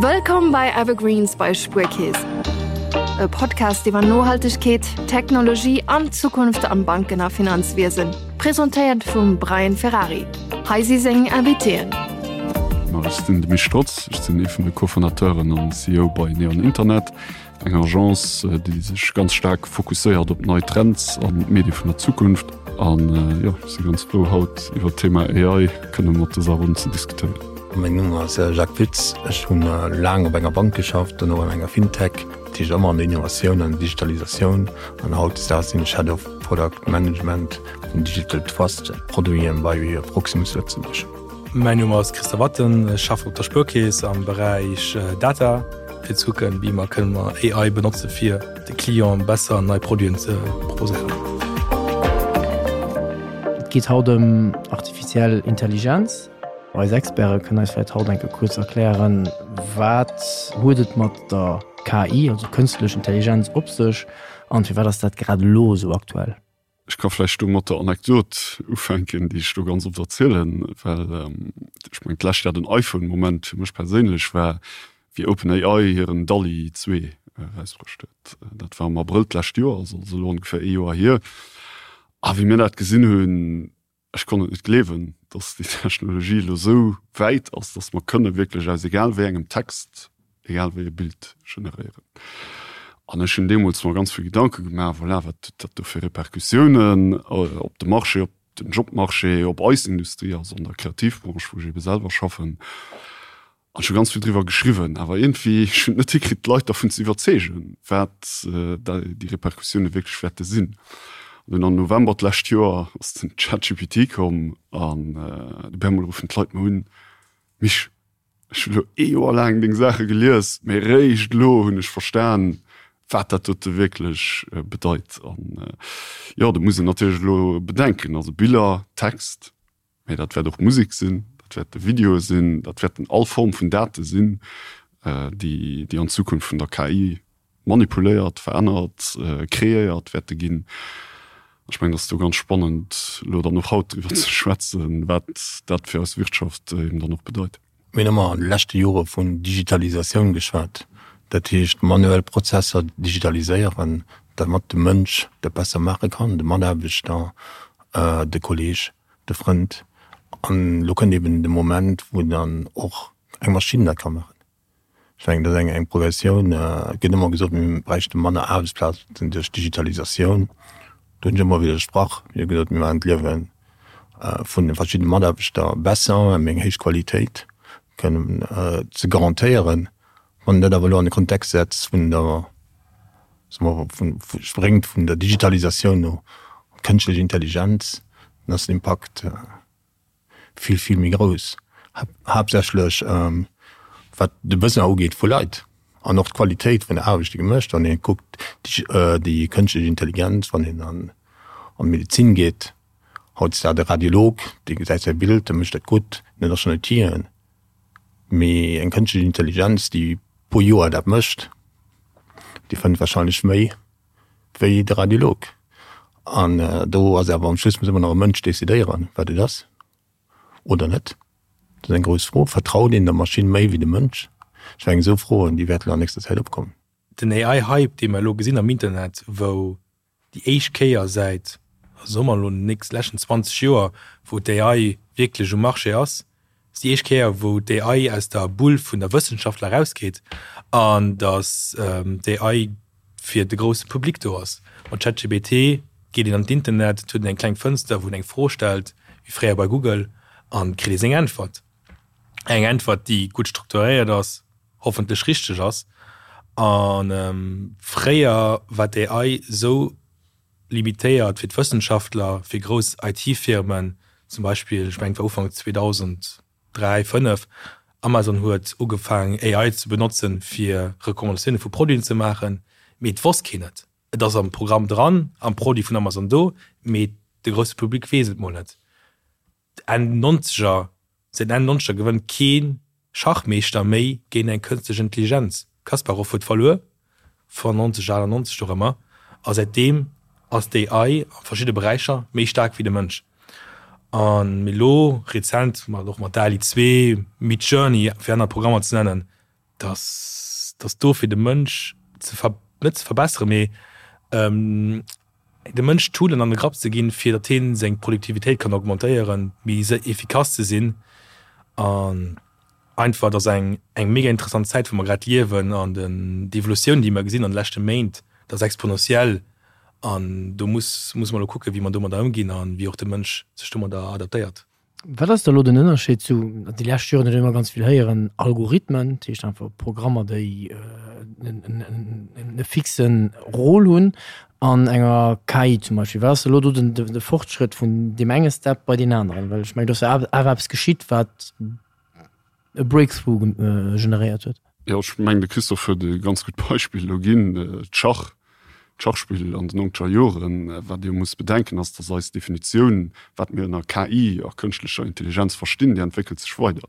Wëllkomm bei Evergreens bei Spuerkeess. E Podcast iwwer Nohaltegkeet, Technologie an d'Zukunft am Banken a Finanzwiesen. Presentéiert vum Brian Ferrari. Hei si seng Invitéen. Ma ech sinn de Misch Strotz, ech sinn ee vun de Co-Fondateuren an CEO bei Neon Internet. Eng Agence, déi sech ganz staark fokusséiert op nei Trends an d'Medie vun der Zukunft. An jo, ech si ganz frou haut iwwer d'Thema AI kënne mat dëser Ronn ze diskutéieren. Mäin Numm ass Jacques Pütz. Ech hunn laang op enger Bank geschafft, dono an enger Fintech, dat heescht ëmmer an der Innovatioun an der Digitalisatioun. An hautdesdaags sinn ech Head of Product Management vun Digital Trust Produiten bei Proximus Lëtzebuerg. Mäin Numm ass Christa Watten, ech schaffen op der Spuerkeess am Beräich Data, fir ze kucken, wéi mer kënnen mer AI benotze fir de Clienten besser nei Produiten ze proposéieren. Et geet haut ëm artificiell Intelligenz. Eis Experte kënnen eis vläicht haut eng Kéier kuerz erklären, wat huet et mat der KI, also kënstlech Intelligenz, op sech an firwat ass dat grad elo esou aktuell? Ech ka vläicht do mat der Anekdot ufänken, déi ech do ganz oft erzielen, well ech mengen d'lescht Jahr den iPhone-Moment fir mech perséinlech war, wéi OpenAI hiren DALL-E 2 erausbruecht huet. Dat war am Abrëll d'lescht Joer, also ass elo ongeféier ee Joer hier. A wéi mir dat gesinn hunn, Ech konnt et net gleewen, dass déi Technologie elo esou wäit ass, dass mer kënne wierklech aus egal wéi engem Text egal wéi e Bild generéieren. An ech hunn deemools mer ganz vill Gedanke gemaach, voilà, wat huet dat do fir Repercussiounen op de Marché, op den Jobmarché, op eis Industrie, also an der Kreativbranche, wou ech eebe selwer schaffen. An ech hu ganz vill driwwer geschriwwen, awer iergendwéi, ech hunn et net hikritt, d'Leit dervun ze iwwerzeegen, wat déi Repercussioune wierklech wäerte sinn. An dunn am November d'lescht Joer ass den ChatGPT komm an op eemol ruffen d'Leit mer un, Mich, ech hu lo ee Joer laang deng Saache gelies, mee réischt elo hunn ech verstan, wat dat dote wierklech bedeit. An jo, do muss een natierlech elo bedenken, also Biller, Text, Mee dat wäert och Musek sinn, dat wäerte Videoe sinn, dat wäerten all Form vun Date sinn, déi déi an Zukunft vun der KI manipuléiert, verännert, kreéiert wäerte ginn. Ech mengen, et ass do ganz spannend, elo dann och haut driwwer ze schwätzen, wat dat fir eis Wirtschaft eben dann och bedeit. Mir hunn ëmmer an de leschte Jore vun Digitalisatioun geschwat, dat heescht manuell Prozesser digitaliséieren, dermat de Mënsch dat besser maache kann, de Mataarbechter, de Kolleeg. de Frënd. An elo kënnt eben de Moment, wou dann och eng Maschinn dat ka maachen. Ech mengen, dat ass eng eng Progressioun. Et gëtt ëmmer gesot, mir bräichte manner Aarbechtsplazen duerch d'Digitalisatioun. Do hunn ech ëmmer widdersprach. Mir hu gesot, mir maachen d'Liewe vun de verschiddene Mataarbechter besser, ëm eng héich Qualitéit kënnen ze garantéieren. Wann een dat awer elo an de Kontext setzt vun der, soe mer, vun, spréngt vun der Digitalisatioun no kënschtlech Intelligenz, dann ass den Impakt vill, vill méi grouss, haaptsächlech wat de Besoin ugeet vu Leit an och d'Qualitéit vun der Aarbecht, déi gemécht. Wann ee kuckt, déi kënschtlech Intelligenz, wann een an d'Medezin geet, hautdesdaags de Radiolog, dee gesäit säi Bild, dee mécht dat gutt, dat ass schonn Outile. Mee eng kënschtlech Intelligenz, déi pro Joer dat mécht, déi fënnt warscheinlech méi wéi de Radiolog. An do ass awer am Schluss muss ëmmer nach e Mënsch decidéieren, wat et ass oder net. Dat ass eng grouss Fro. Vertraut een der Maschinn méi wéi dem Mënsch? Ech mengen, esou Froen, déi wäerten an nächster Zäit opkommen. Den AI-Hype, dee mer elo gesinn am Internet, wou déi éischt Kéier säit, soe mer elo, den nächst leschten 20 Joer, wou d'AI wierklech um Marché ass, ass déi éischt Kéier, wou d'AI aus der Bull vun der Wëssenschaftler erausgeet an datt d'AI fir de grousse Public do ass. Mat ChatGPT geet een an d'Internet, et huet een eng kleng Fënster, wou een eng Fro stellt, wéi fréier bei Google, an kritt ee seng Äntwert. Eng Äntwert, déi gutt strukturéiert ass, hoffentlech richteg ass. A fréier war d'AI esou limitéiert fir d'Wëssenschaftler, fir grouss IT-Firmen, zum Beispill, ech mengen et war Ufank 2003, 5, Amazon huet ugefaangen AI ze benotzen, fir Recommandatioune vu Produiten ze maachen, mee et wosst keen et. Et ass am Programm dran, am Produit vun Amazon do, mee de grousse Public weess et mol net. Enn Nonzeger, säit Enn Nonzeger gewënnt kee Schachmeeschter méi géint eng kënstlech Intelligenz. Kasparov huet verluer, 95, 98, dorëmmer, a säitdeem ass d'AI a verschidde Beräicher méi staark wéi de Mënsch. An elo rezent, mat och mat DALL-E 2, Midjourney, fir aner Programmer ze nennen,. Dass, dass do fir de Mënsch ze ver, net ze verbesseren, mee dem Mënsch Toolen an de Grapp ze ginn, fir datt hien seng Produktivitéit kann augmentéieren, méi efficace ze sinn. An einfach, et ass eng, eng mega interessant Zäit, wou mer grad liewen an den, d'Evolutioun, déi mer gesinn an de leschte Méint, dat ass exponentiell an do muss, muss mer elo kucken, wéi mer domadder ëmginn a wéi och de Mënsch sech domadder adaptéiert. Wat ass da elo den Ënnerscheed zu, déi lescht Joren huet een ëmmer ganz vill héieren, Algorithmen, dat heescht einfach Programmer, déi e fixe Rôle hunn, an enger KI zum Beispill. Wat ass elo do den de Fortschrëtt vun deem enge Step bei deen aneren? Well ech mengen, do ass jo awer eppes geschitt, wat e Breakthrough generéiert huet. Jo, ech mengen, de Christophe huet e ganz gutt Beispill elo ginn, d'Schach, d'Schachspill an den nonzeger Joren. Wat ee muss bedenken, ass, datt eis Definitioun, wat mir ënner KI a kënschtlecher Intelligenz verstinn, déi entwéckelt sech weider.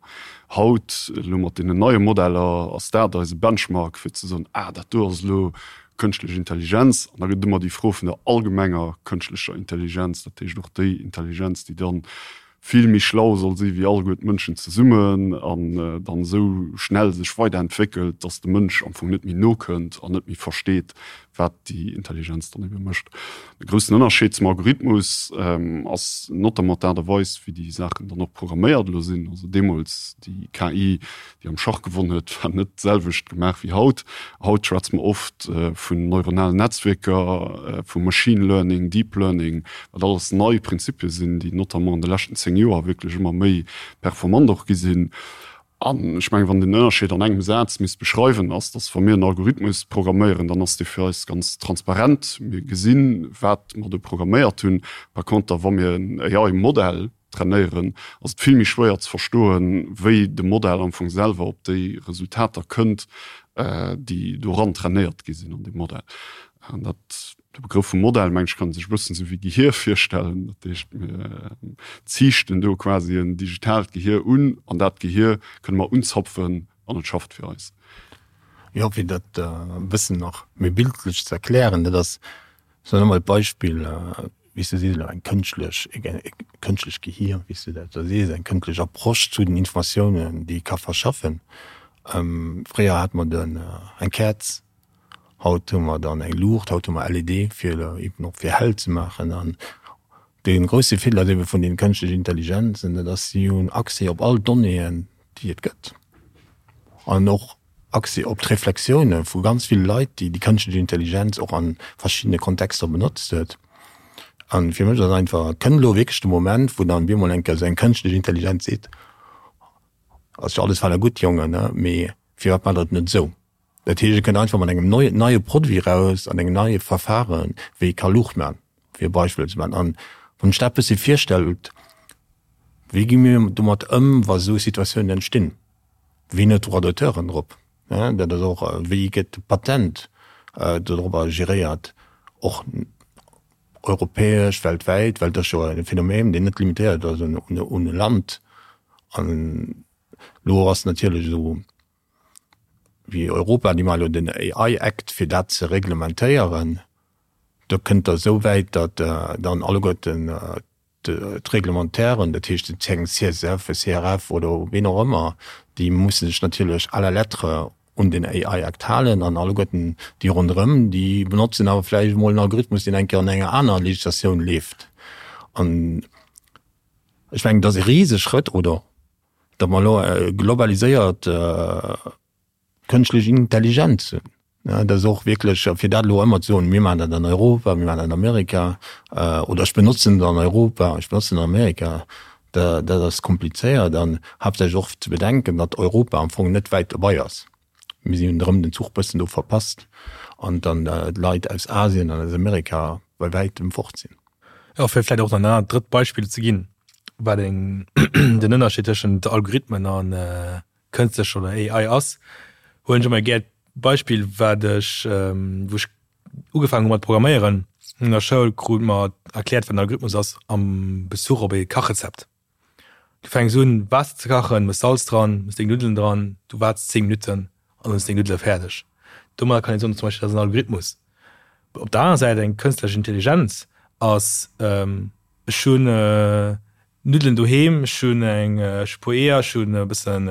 Haut, elo mat deenen neie Modeller, ass dat eise Benchmark, fir ze soen, ah, dat do ass elo kënschtlech Intelligenz. An da gëtt et ëmmer déi Fro vun der allgemenger kënschtlecher Intelligenz, dat heescht och déi Intelligenz, déi dann vill méi schlau soll si wéi alleguer d'Mënschen zesummen an dann esou schnell sech weiderentwéckelt, dass de Mënsch am Fong net méi nokënnt an net méi versteet, wat déi Intelligenz dann ebe mécht. De groussen Ënnerscheed zum Algorithmus ass notamment d'Aart a Weis, wéi déi Saachen dann och programméiert elo sinn. Also deemools déi KI, déi am Schach gewonn huet, war net d'selwecht gemaach wéi haut. Haut schwätze mer oft vun neuronalen Netzwierker, vu Machine Learning, Deep Learning, wat alles nei Prinzipie sinn, déi notamment an de leschten 10 Joer wierklech ëmmer méi performant och gi sinn. An ech mengen, wann een den Ënnerscheed an engem Saz misst beschreiwen, ass, dass wa mir en Algorithmus programméieren, dann ass dee fir eis ganz transparent. Mir gesinn, wat mer do programméiert hunn. Par conter, wa mir en AI-Modell trainéieren, ass et vill méi schwéier ze verstoen, wéi de Modell am Fong selwer op déi Resultater kënnt, déi doran trainéiert gi sinn an deem Modell. An dat, de Begrëff vum Modell, meng ech, kann ee sech e bëssen esou wéi Gehier virstellen. Dat heescht, mir ziichten do quasi en digitaalt Gehier un an dat Gehier kënne mer unzapfen an et schafft fir eis. Jo, fir dat e bëssen nach méi bildlech ze erklären, dat ass, Soen emol d'Beispill, wéi s de sees elo, eng kënschtlech, e kënschtlech Gehier, wéi s de dat da sees, eng kënschtlech Approche zu den Informatiounen, déi e ka verschaffen. Fréier hate mer den, eng Käerz, haut hu mer dann eng Luucht, haut hu mer LED, fir eben och fir hell ze maachen. An dee grousse Virdeel ass ebe vun den kënschtlechen Intelligenzen, dat ass, si hunn Accès op all Donnéeën, déi et gëtt an och Accès op d'Reflexioune vu ganz ville Leit, déi déi kënschtlech Intelligenz och a verschiddene Kontexter benotzt huet. A fir mech ass einfach, kënnt elo wierklech de Moment, wou dann bemol eng Kéier esou eng kënschtlech Intelligenz seet, Ass jo alles fein a gutt, Jongen, mee firwat maacht der et net esou? Dat heescht, e kënnt einfach mat engem neie Produit eraus an engem neie Verfaren, wéi ee ka Luucht maachen, fir e Beispill ze maachen. An wann ech dat e bëssi virstellt, wéi gi mir domat ëm, wa esou Situatiounen entstinn? Wien huet Droits d'auteuren drop? Dat ass och, wéi gëtt de Patent dodrobber geréiert, och europäesch, weltwäit, well et ass jo e Phänomen, deen net limitéiert ass un e Land. An elo ass natierlech esou wéi Europa, déi maache elo den AI Act, fir dat ze reglementéieren. Do kënnt der esou wäit, datt dann alleguerten d'Reglementairen, dat heescht den CSF, e CRF oder ween och ëmmer, déi musse sech natierlech à la lettre un den AI Act halen an alleguerten déi ronderëm, déi benotzen awer vläicht emol en Algorithmus, deen eng Kéier an enger aner Legislatioun leeft. An ech mengen, dat ass e Riseschrëtt, oder datt mer elo e globaliséiert Kënschtlech Intelligenz hunn. Dat ass och wierklech, fir dat elo ëmmer ze soen, mir maachen dat an Europa, mir maachen dat an Amerika, oder ech benotzen et an Europa, ech benotzen et an Amerika, dat ass komplizéiert an haaptsächlech och ze bedenken, datt Europa am Fong net wäit dobei ass. Mir si hunn erëm den Zuch bëssen do verpasst an dann d'Leit aus Asien an aus Amerika bei wäitem fort sinn. Jo, fir vläicht och nach en anert drëtt Beispill ze ginn, wat eng den Ënnerscheed tëschent Algorithmen an kënstlecher oder AI ass, huelen ech ëmmer gär d'Beispill, wat ech, wou ech ugefaangen hu mat programméieren an der Schoul, krute mer erkläert, wat en Algorithmus ass am Bezuch op ee Kachrezept. Du fänks un, Waasser ze kachen, mëss Salz dran, mëss deng Nuddelen dran, du waarts 10 Minutten an dann hues deng Nuddele fäerdeg. Domadder kann een soen, zum Beispill, dat ass en Algorithmus. Op der anerer Säit, eng kënstlech Intelligenz ass, ech hunn Nuddelen doheem, ech hunn eng, ech hu puer Eeër, ech hunn e bëssen.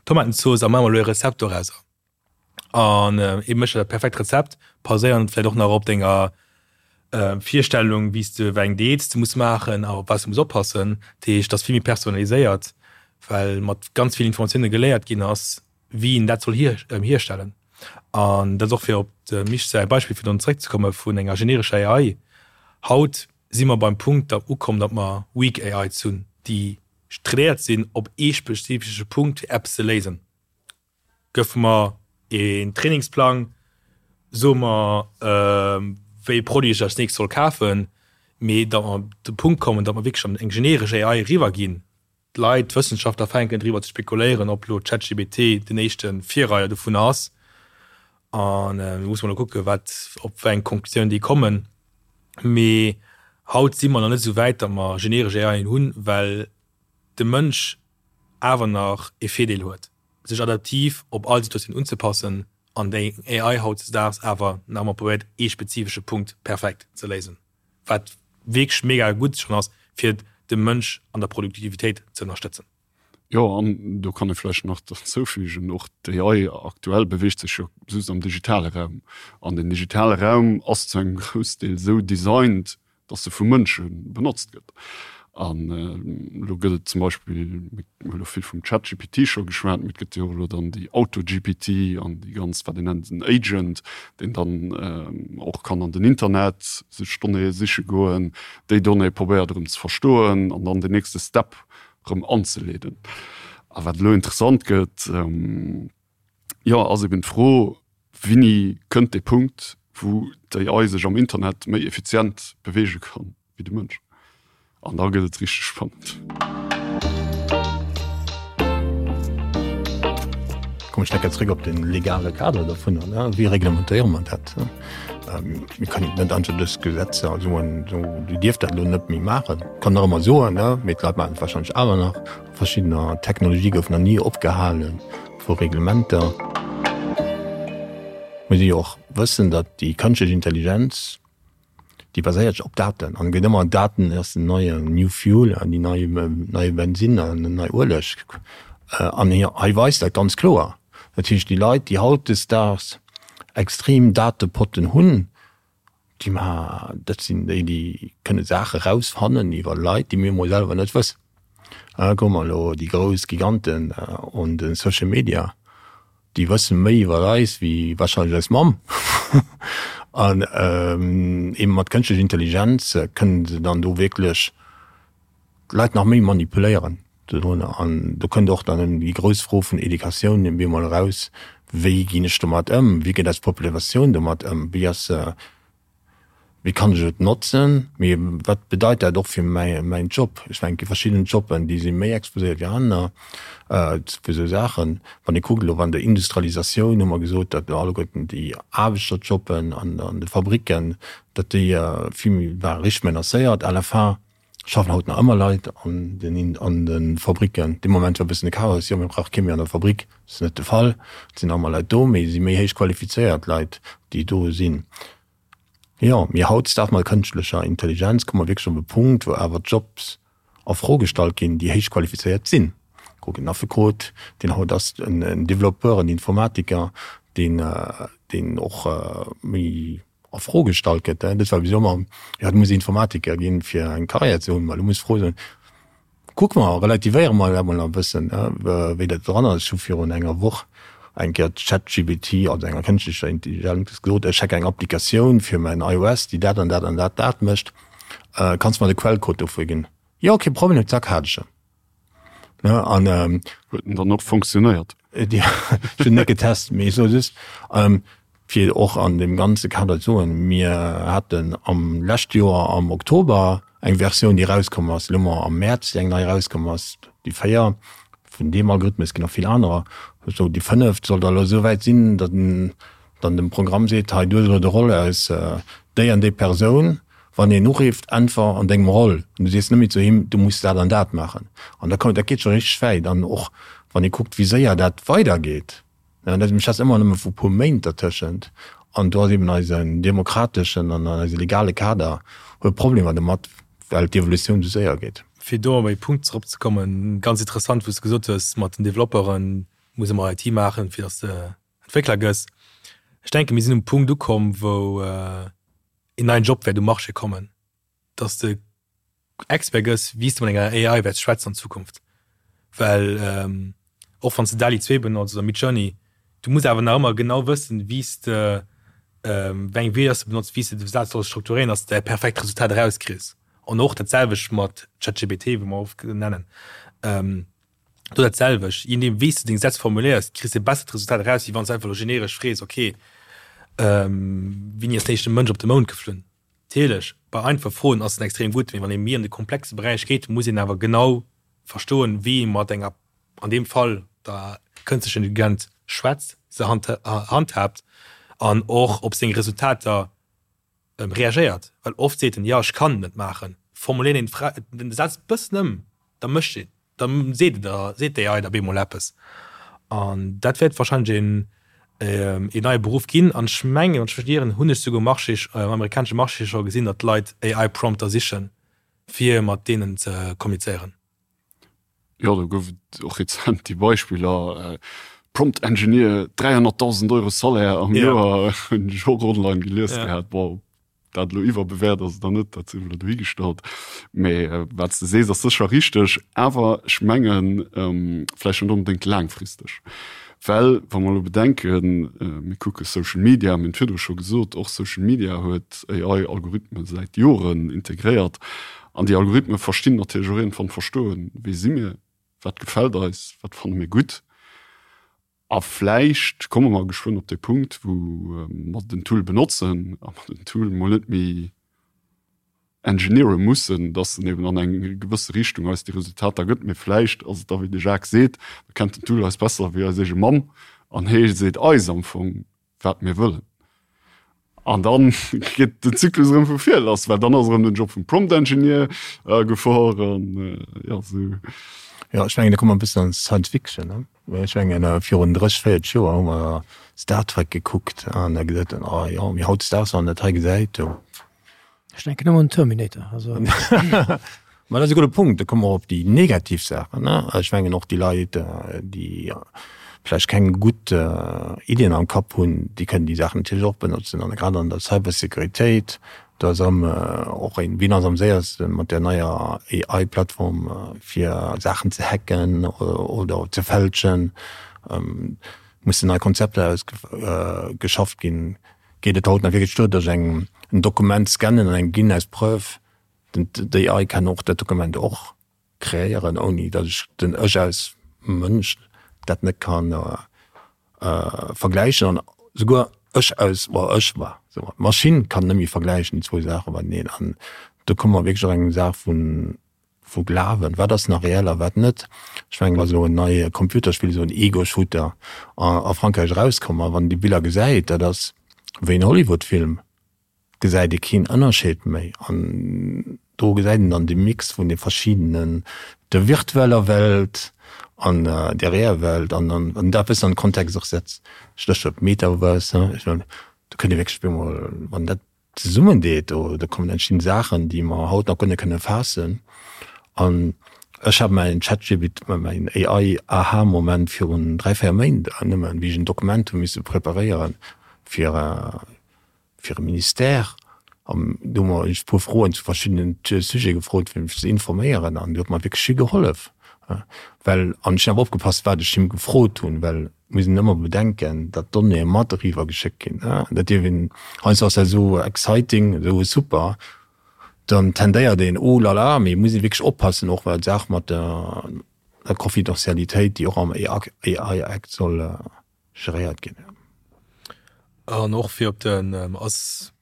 Tomatenzooss a maache mer elo e Rezept dorauser. An ee mécht der dat perfekt Rezept, baséierend vläicht och nach op denger Virstellung, wéi s de wéi eng Diät s de muss maachen a op wat s de muss oppassen. Dat heescht, et ass vill méi personaliséiert, well mat ganz vill Informatioune geléiert ginn ass, wéi een dat soll hierstellen. An dat ass och fir op dem Misch säi Beispill virdrun zeréckzekomme vun enger generescher AI. Haut si mer beim Punkt da ukomm, datt mer weak AIs hunn, déi trainéiert sinn op ee spezifesche Punkt fir eppes ze léisen. Gëff mer een Trainingsplang, so mer wéi ee Produit ech als nächst soll kafen, mee datt mer op de Punkt kommen, datt mer wierklech an eng generesch AI eriwwer ginn. D'Leit, d'Wëssenschaftler fänken driwwer ze spekuléieren, ob elo ChatGPT den éischte Virreier dovunner ass. An do musse mer elo kucken, wat, op wéi eng Konklusioun déi kommen. Mee haut si mer nach net esou wäit, datt mer generesch AIen hunn, well de Mënsch awer nach e Virdeel huet, sech adaptiv op all Situatioun unzepassen an déi AI hautdesdaags awer nach ëmmer probéiert, ee spezifesche Punkt perfekt ze léisen. Wat wierklech mega gutt schonn ass, fir de Mënsch an der Produktivitéit ze ënnerstëtzen. Jo, an do kann ee vläicht nach derzoufügen, och d'AI aktuell beweegt sech jo just am digitale Raum. An den digitale Raum ass zu engem Groussdeel esou designt, dass se vu Mënsche benotzt gëtt. An elo gëtt et zum Beispill, mir hu elo vill vum ChatGPT scho geschwat, mee et gëtt jo och elo dann déi AutoGPT an déi ganz, wat een nennt, en Agent, deen dann och kann an den Internet sech Donnéeë siche goen, déi Donnéeë probéiert erëm ze verstoen an dann den nächste Step erëm anzeleeden. A wat elo interessant gëtt, jo, ass eben d'Fro, Wéini kënnt dee Punkt, wou d'AI sech am Internet méi effizient beweege kann wéi de Mënsch? An da gëtt et richteg spannend. Kommen ech enke zréck op de legale Kader dovunner. Wéi reglementéiere mer dat? Mir kënnen net einfach dës Gesetzer soen, esou, Dir dierft dat elo net méi maachen. Kann nach ëmmer soen, mee d'Leit maachen et warscheinlech awer nach. Verschiddener Technologie goufen nach ni opgehale vu Reglementer. Muss ee jo och wëssen, datt déi kënschtlech Intelligenz, déi baséiert sech op Daten an gëtt ëmmer Daten ass den neien New Fuel an déi nei neie Bensinn an den nei Ueleg. An hei weist dat ganz kloer. Dat heescht déi Leit, déi hautdesdaags extrem Datepotten hunn, déi ma dat sinn déi, déi kënne Saache rausfannen iwwer Leit, déi mir emol selwer net wëssen. Kucke mer elo déi grouss Giganten un de Social Media, déi wësse méi iwwer eis wéi warscheinlech eis Mamm. An eebe mat kënschtlecher Intelligenz kënnen se dann do wierklech d'Leit nach méi manipuléieren dodrunner. An do kënnt och dann déi grouss Fro vun Educatioun op eemol eraus, Wéi ginn ech domat ëm? Wéi geet eis Populatioun domat ëm? Wéi ass se Wéi kann ech et notzen? Mee wat bedeit dat och fir mäin Job? Ech mengen, et gi verschidden Jobben, déi si méi exposéiert wéi aner fir esou Saachen. Wann ee kuckt elo an der Industrialisatioun hu mer gesot, datt elo alleguerten déi Aarbechterjobben an de Fabricken, datt déi vill méi ware richteg menacéiert. À la fin schaffen haut nach ëmmer Leit an den an de Fabricken. Dee Moment war e bëssen de Chaos, jo mir brauche kee méi an der Fabrik. Dat ass net de Fall. Et sinn nach ëmmer Leit do, mee et si méi héich qualifizéiert Leit, déi do sinn. Jo, mee hautdesdaags mat kënschtlecher Intelligenz komme mer wierklech op e Punkt, wou awer Jobs a Fro gestallt ginn, déi héich qualifizéiert sinn. Kuck en Affekot, deen haut ass, en Développeur, en Informatiker, deen, deen och méi a Fro gestallt gëtt. Dat war bis elo ëmmer, jo, du muss Informatiker ginn, fir eng Karriär ze hunn. Mä elo muss d'Fro sinn, Kucke mer, relativéiere mer dat mol e bëssen, wéi dat dran ass. Ech hu virun enger Woch eng Kéier ChatGPT, also enger kënschtlecher Intelligenz, gesot, ech hätt eng Applikatioun fir mäin iOS, déi dat an dat an dat dat mécht, kanns de mer de Quellcode dofir ginn? Jo, kee Problem, zack, hat ech en. Ne, an. Huet en dann och funktionéiert? Ech hunn net getest, mee ech soe just, Fir och an deem ganze Kader ze soen, Mir haten am leschte Joer am Oktober eng Versioun, déi erauskomm ass, elo hu mer am Mäerz eng nei erauskomm ass, déi 4 vun deem Algorithmus, et ginn nach vill anerer, esou déi fënneft soll da elo esou wäit sinn, datt en dann dem Programm seet, hei du hues elo de Roll aus déi an déi Persoun, wann een urifft, äntwer an dengem Roll an du sees net méi zu him, du muss dat an dat maachen. An da dat geet scho richteg wäit. An och wann ee kuckt, wéi séier dat weidergeet. Mir schwätzen ëmmer nëmme vu puer Méint dertëschent. An do ass eben eisen demokrateschen an eise legale Kader huet Problemer domat, well d'Evolutioun esou séier geet. Fir do op e Punkt zeropzekommen, ganz interessant, wou s de gesot hues mat den Developperen. Muss ëmmer IT maachen, fir datt s de Entwéckler gëss. Ech denken, mir sinn um Punkt ukomm, wou een neien Job wäert um Marché kommen, datt s de Expert gëss, wéi s de mat enger AI wäerts schwätzen an Zukunft. Well och wann s de DALL-E 2 benotz oder Midjourney, du muss awer nach ëmmer genau wëssen, wéi s de, wéi eng Wierder s de benotz, wéi s de de Saz solls strukturéieren, datt s de dat perfekt Resultat erauskriss. An och dat selwecht mat ChatGPT, wou mer oft nennen. Do dat selwecht, je nodeem wéi s de deng Sätz formuléiers, kriss de e bessert Resultat eraus, wéi wann s de einfach elo generesch frees, ok, wéini ass den éischte Mënsch op de Mound geflunn? Natierlech, bei einfache Froen ass en extrem gutt, mee wann ee méi an de komplexe Beräich geet, muss een awer genau verstoen, wéi ee mat enger, an deem Fall der kënstlecher Intelligenz schwätzt, se handhaabt an och op seng Resultater reagéiert. Well oft seet en, jo, ech kann et net maachen. Formuléiert een d'Fra, den Saz e bëssen ëm, da mécht een, da seet et der, seet d'AI der bemol eppes. An dat wäert wahrscheinlech een, een neie Beruff ginn. An ech mengen, wann ech mech net ieren, hunn ech souguer um Marché, um amerikanesche Marché scho gesinn, datt Leit AI-Prompter sichen, fir mat deenen ze kommunizéieren. Jo, do gouf et och rezent déi Beispiller, Prompt Engineer, 300.000 Euro Salaire am Joer, hunn ech och online gelies gehat. Bon, ob dat elo iwwerbewäert ass oder net, dat sief elo dohigestallt. Mee wat s de sees, ass sécher richteg, awer ech mengen, vläicht net onbedéngt laangfristeg. Well wa mer elo bedenken, mir kucke Social Media, mir hunn et virdru scho gesot, och Social Media huet AI-Algorithme säit Joren integréiert. An déi Algorithme verstinn natierlech och iergendwann verstoen, wie si mir, wat gefält eis, wat fanne mir gutt. A vläicht komme mer geschwënn op dee Punkt, wou mer den Tool benotzen a mer den Tool mol net méi engineere mussen, dass en eben an eng gewësse Richtung eis déi Resultater gëtt. Mee vläicht ass et da, wéi de Jacques seet, da kennt den Tool eis besser wéi eis eege Mamm an hee seet eis am Fong, wat mir wëllen. An dann geet den Zyklus erëm vu vir lass, well dann ass erëm den Job vum Prompt Engineer a Gefor an jo esou. Jo, ech mengen, do komme mer e bëssen an Science Fiction, ne? Ech mengen, virun 30, 40 Joer hu mer Star Trek gekuckt an da gesot, oh jo, mee hautdesdaags, wann een dat hei gesäit, do. Ech denken ëmmer un Terminator. Also. Ma dat ass e gudde Punkt. Da komme mer op déi negativ Saachen. Ne? Ech mengen och déi Leit, déi vläicht keng gutt Iddien am Kapp hunn, déi kënnen déi Saachen natierlech och benotzen. An grad an der Cybersécuritéit, do ass erëm och een, wien ass am séierste mat där neier AI-Plattform, fir Saachen ze hacken oder ze fälschen, mussen nei Konzepter ausgeschafft ginn. Geet et haut nach wierklech duer, datt ech eng en Dokument scannen an engem ginn als Preuve? Den d'AI kann och dat Dokument och kreéieren, ouni datt ech den ech als Mënsch dat net kann vergläichen. An souguer ech als, bon ech, ma soe mer d'Maschinn kann net méi vergläichen déi zwou Saache mateneen. An do komme mer wierklech och eng Saach vun Vu Glawen, wat ass nach reell a wat net? Ech mengen, et ass elo en neie Computerspill, esou en Ego-Shooter a Frankräich erauskomm, a wann een déi Biller gesäit, dat ass wéi en Hollywood-Film, gesäit ee keen Ënnerscheed méi. An do gesäit een dann de Mix vun de verschiddenen, der virtueller Welt an der reeller Welt, an dann, wann een dat e bëssen an den Kontext och setzt, Stéchwuert Metaverse, ech mengen, do kënnt ee wierklech op eemol, wann dat zesummen deet, do do kommen entstinn Saachen, déi mer haut nach guer net kënne faassen. An ech hat mäin ChatGPT, mäin AI Aha-Moment virun 3, 4 Méint nëmmen, wéi ech en Dokument hu misse preparéieren fir fir e Ministère. An do hu mer ech e puer Froen zu verschiddenen Sujete gefrot, fir mech ze informéieren an do huet mer wierklech vill gehollef. Well, an ech hunn awer opgepasst, wat ech him gefrot hunn, well Et muss een ëmmer bedenken, datt d'Donnéeë mat eriwwer geschéckt ginn. Dat dierf een, heiansdo ass dat esou exciting, esou super, dann tendéiert een, oh la la, mee et muss ee wierklech oppassen, och well d'Saach mat der Confidentialitéit, déi och am AI Act soll geréiert ginn. An och fir op den, ass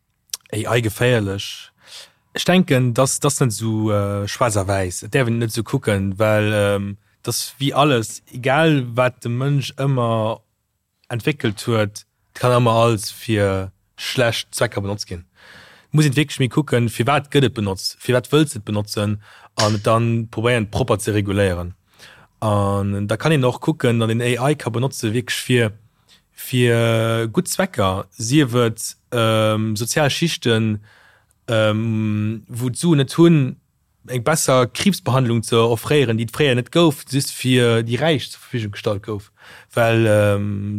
AI geféierlech? Ech denken, dass dass net esou schwaarz a wäiss. Et däerf een et net esou kucken, well dass wéi alles, egal wat de Mënsch ëmmer entwéckelt huet, et kann ëmmer alles fir schlecht Zwecker benotzt ginn. Et muss een et wierklech méi kucken, firwat gëtt et benotzt, firwat wëlls de et benotzen an et dann probéieren propper ze reguléieren. An da kann een och kucken, datt een AI ka benotze wierklech fir fir gutt Zwecker, sief et sozial Schichten, wou d'Suen net hunn. eng besser Kriibsbehandlung ze offréieren, déi et fréier net gouf, just fir déi Räich zur Verfügung gestallt gouf, well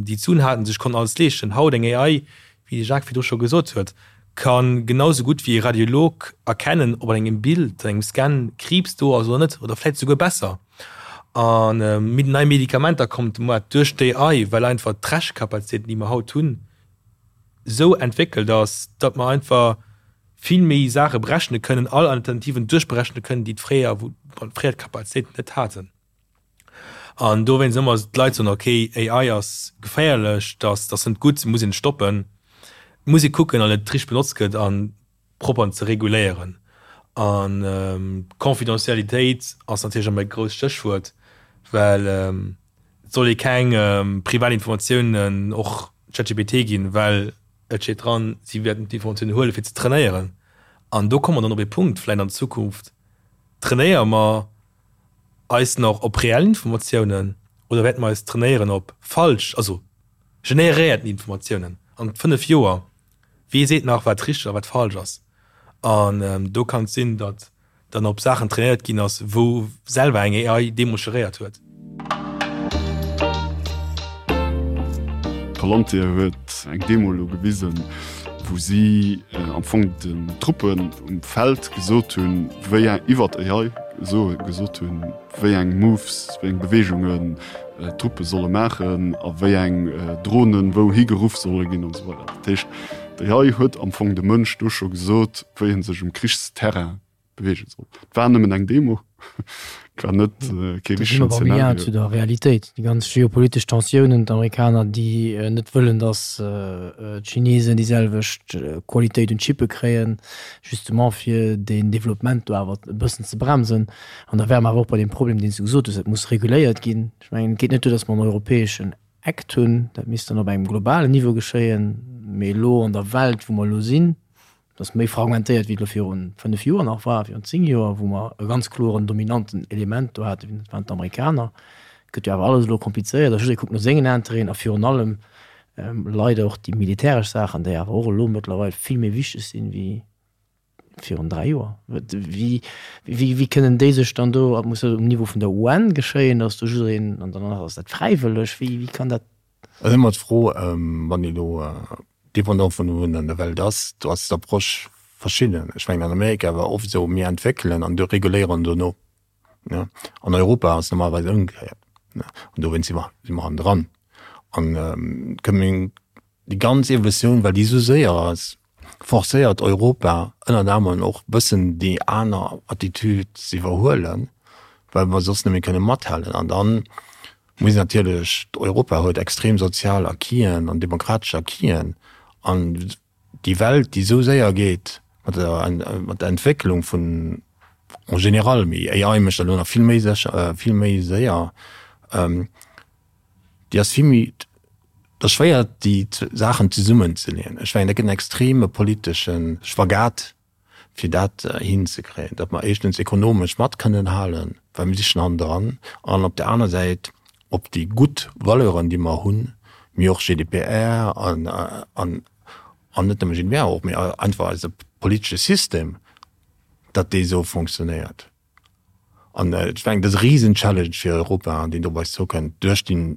déi d'Suen haten, sech konnten alles leeschten. Haut eng AI, wéi de Jacques virdru scho gesot huet, ka genau sou gutt wéi e Radiolog erkennen, ob an engem Bild, an engem Scan Kriibs do ass oder net, oder vläicht souguer besser. A nei Medikamenter kommen op de Moart duerch d'AI, well einfach d'Rechekapazitéiten, déi mer haut hunn, sou entwéckelt ass, datt mer einfach vill méi Saache berechne kënnen, all Alternativen duerchberechne kënnen, déi d'fréier, wou fréier d'Kapazitéiten net haten. An dowéinst ëmmer d'Leit soen, ok, AI ass geféierlech, dat ass net gutt, muss een stoppen. Et muss ee kucken, an et richteg benotzt gëtt an propper ze reguléieren. An Confidentialitéit ass natierlech ëmmer e grousst Stéchwuert, well et soll ee keng privat Informatiounen och ChatGPT ginn, well et steet dran, si wäerten d'Informatiounen huelen, fir ze trainéieren. An do komme mer dann op ee Punkt, vläicht an Zukunft, trainéiere mer eis nach op reell Informatiounen oder wäerte mer eis trainéieren op falsch, also generéierten Informatiounen an 5 Joer? Wee seet nach, wat richteg a wat falsch ass? An do kann et sinn, datt dann op Saachen trainéiert ginn ass, wou selwer eng AI deemools geréiert huet. Palantir huet eng Demo elo gewisen, wou si am Fong den Truppen um Feld gesot hunn, wéi eng, iwwert AI esou gesot hunn, wéi eng Moves, wéi eng Beweegungen d'Truppe solle maachen a wéi eng Dronen wou higeruff solle ginn an esou weider. Dat heescht, d'AI huet am Fong dem Mënsch do scho gesot, wéi en sech um Krichsterrain beweege soll. Et war nëmmen eng Demo, et war net kee richtegen Zeenario. Zu der Realitéit, déi ganz geopolitesch Tensiounen, d'Amerikaner, déi net wëllen, datt d'Chinesen déi selwecht Qualitéit un Chippe kréien, justement fir deen Developpement do awer e bëssen ze bremsen. An da wäre mer awer och bei deem Problem, deen s du gesot hues, et muss reguléiert ginn. Ech mengen, et geet net duer, datt mer en europäeschen Act hunn, dat misst dann op engem globalen Niveau geschéien, mee elo an der Welt, wou mer elo sinn, Et ass méi fragmentéiert, wéi et elo viru 5 Joer nach war, virun 10 Joer, wou mer e ganz kloren dominanten Element do haten, dat waren d'Amerikaner. Et gëtt jo awer alles elo komplizéiert a jidderee kuckt no sengen Interêten a virun allem leider och déi militäresch Saachen, déi awer och elo mëttlerweil vill méi wichteg sinn wéi virun 3 Joer. Wéi, wéi kënnen déi sech dann do, muss dat um Niveau vun der UN geschéien, datt do jiddereen, an dann ass dat fräiwëlleg, wéi, wéi kann dat? Et ass ëmmer d'Fro, wann ee elo Dépendant vun wou een an der Welt ass, do ass d'Approche verschidden. Ech mengen an Amerika war oft esou, mir entwéckelen an reguléieren dono. An Europa ass normalerweis ëmgekéiert. An dowéinst si mer, si mer hannendran. An kënnen déi ganz Evolutioun, well déi esou séier ass, forcéiert Europa ënnert anerem och bëssen déi aner Attitude ze iwwerhuelen, well mer soss net méi kënne mathalen. An dann Muss natierlech, Europa huet extrem sozial Acquisen an demokratesch Acquisen an déi Welt, déi esou séier geet mat der, mat der Entwécklung vun en général, mee AI mécht dat elo nach vill méi sécher, vill méi séier, déi ass vill méi, et ass schwéier déi Saachen zesummenzeleeën. Ech mengen, dat gëtt en extreme politesche Spagat. fir dat hinzekréien, datt mer éischtens ekonomesch mat kënnen halen, well mir si schonn hannendran, an op där aner Säit op déi gutt Valeuren, déi mer hunn, mee och GDPR an, an, an net nëmme GDPR och, mee einfach eise politesche System, datt dee esou fonctionnéiert. An ech mengen, dat ass e Risen-Challenge fir Europa, deen do op eis zoukënnt duerch déi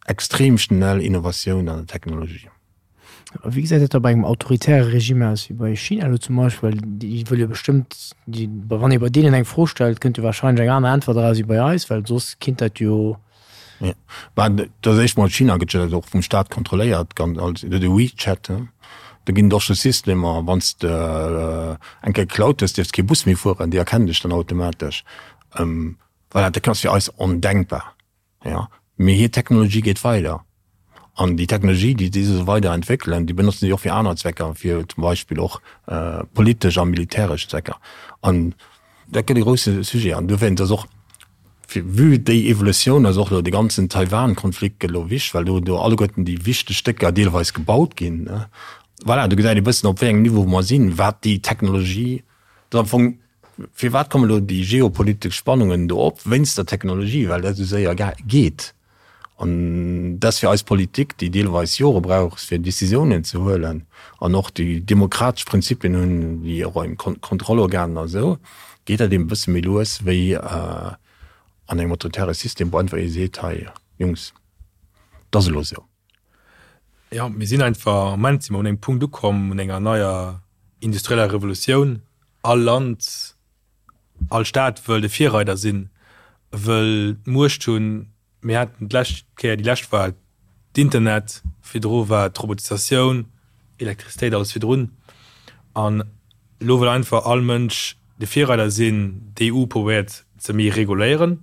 Extrem schnell Innovatioun an der Technologie. A wéi gesäit dat da bei engem autoritäre Regime aus, wéi bei China elo zum Beispill? Well déi wëlle jo bestëmmt, déi, wann ee bei deenen eng Fro stellt, kënnt jo wahrscheinlech eng aner Äntwert eraus wéi bei eis, well soss kinnt dat jo. Jo, mä dat ass éischt mol, China gëtt jo och vum Staat kontrolléiert, ganz als de WeChat, do ginn et och scho Systemer, wann s de eng Kéier geklaut hues, dierfs kee Bus méi fueren, déi erkennen dech dann automatesch. Voilà, dat ass fir eis ondenkbar. Jo, mee hir Technologie geet weider. An déi Technologie, déi si esou weider entwéckelen, déi benotzen si och fir aner Zwecker, fir zum Beispill och politesch a militäresch Zwecker. An dat gëtt e grousse Sujet. An dowéinst ass och, fir vue déi Evolutioun ass och elo de ganzen Taiwan-Konflikt gëtt elo wichteg, well do do alleguerten déi wichteg Stécker deelweis gebaut ginn. Voilà, do gesäit ee bëssen, op wéi engem Niveau mer sinn, wat déi Technologie, dat ass am Fong Firwat kommen elo déi geopolitesch Spannungen do op? Wéinst der Technologie, well dat esou séier geet. An dat ass fir eis Politik, déi deelweis Jore brauch, fir Decisiounen ze huelen, an och déi demokratesch Prinzipien hunn, wéi och eng Kontrollorganen a sou, Geet dat eben e bësse méi lues wéi an engem autoritäre System, wou einfach ee seet, hei Jungs, et ass elo esou. Jo, mir sinn einfach, am Moment si mer un engem Punkt ukomm, un enger neier industrieller Revolutioun. All Land, all Staat wëll de Virreider sinn, wëll d'Muecht hunn. Mir haten d'lescht Kéier, déi lescht war d'Internet, virdru war d'Robotisatioun, Elektrizitéit, alles virdrun. An elo wëll einfach all Mënsch de Virreider sinn. D'EU probéiert ze méi reguléieren,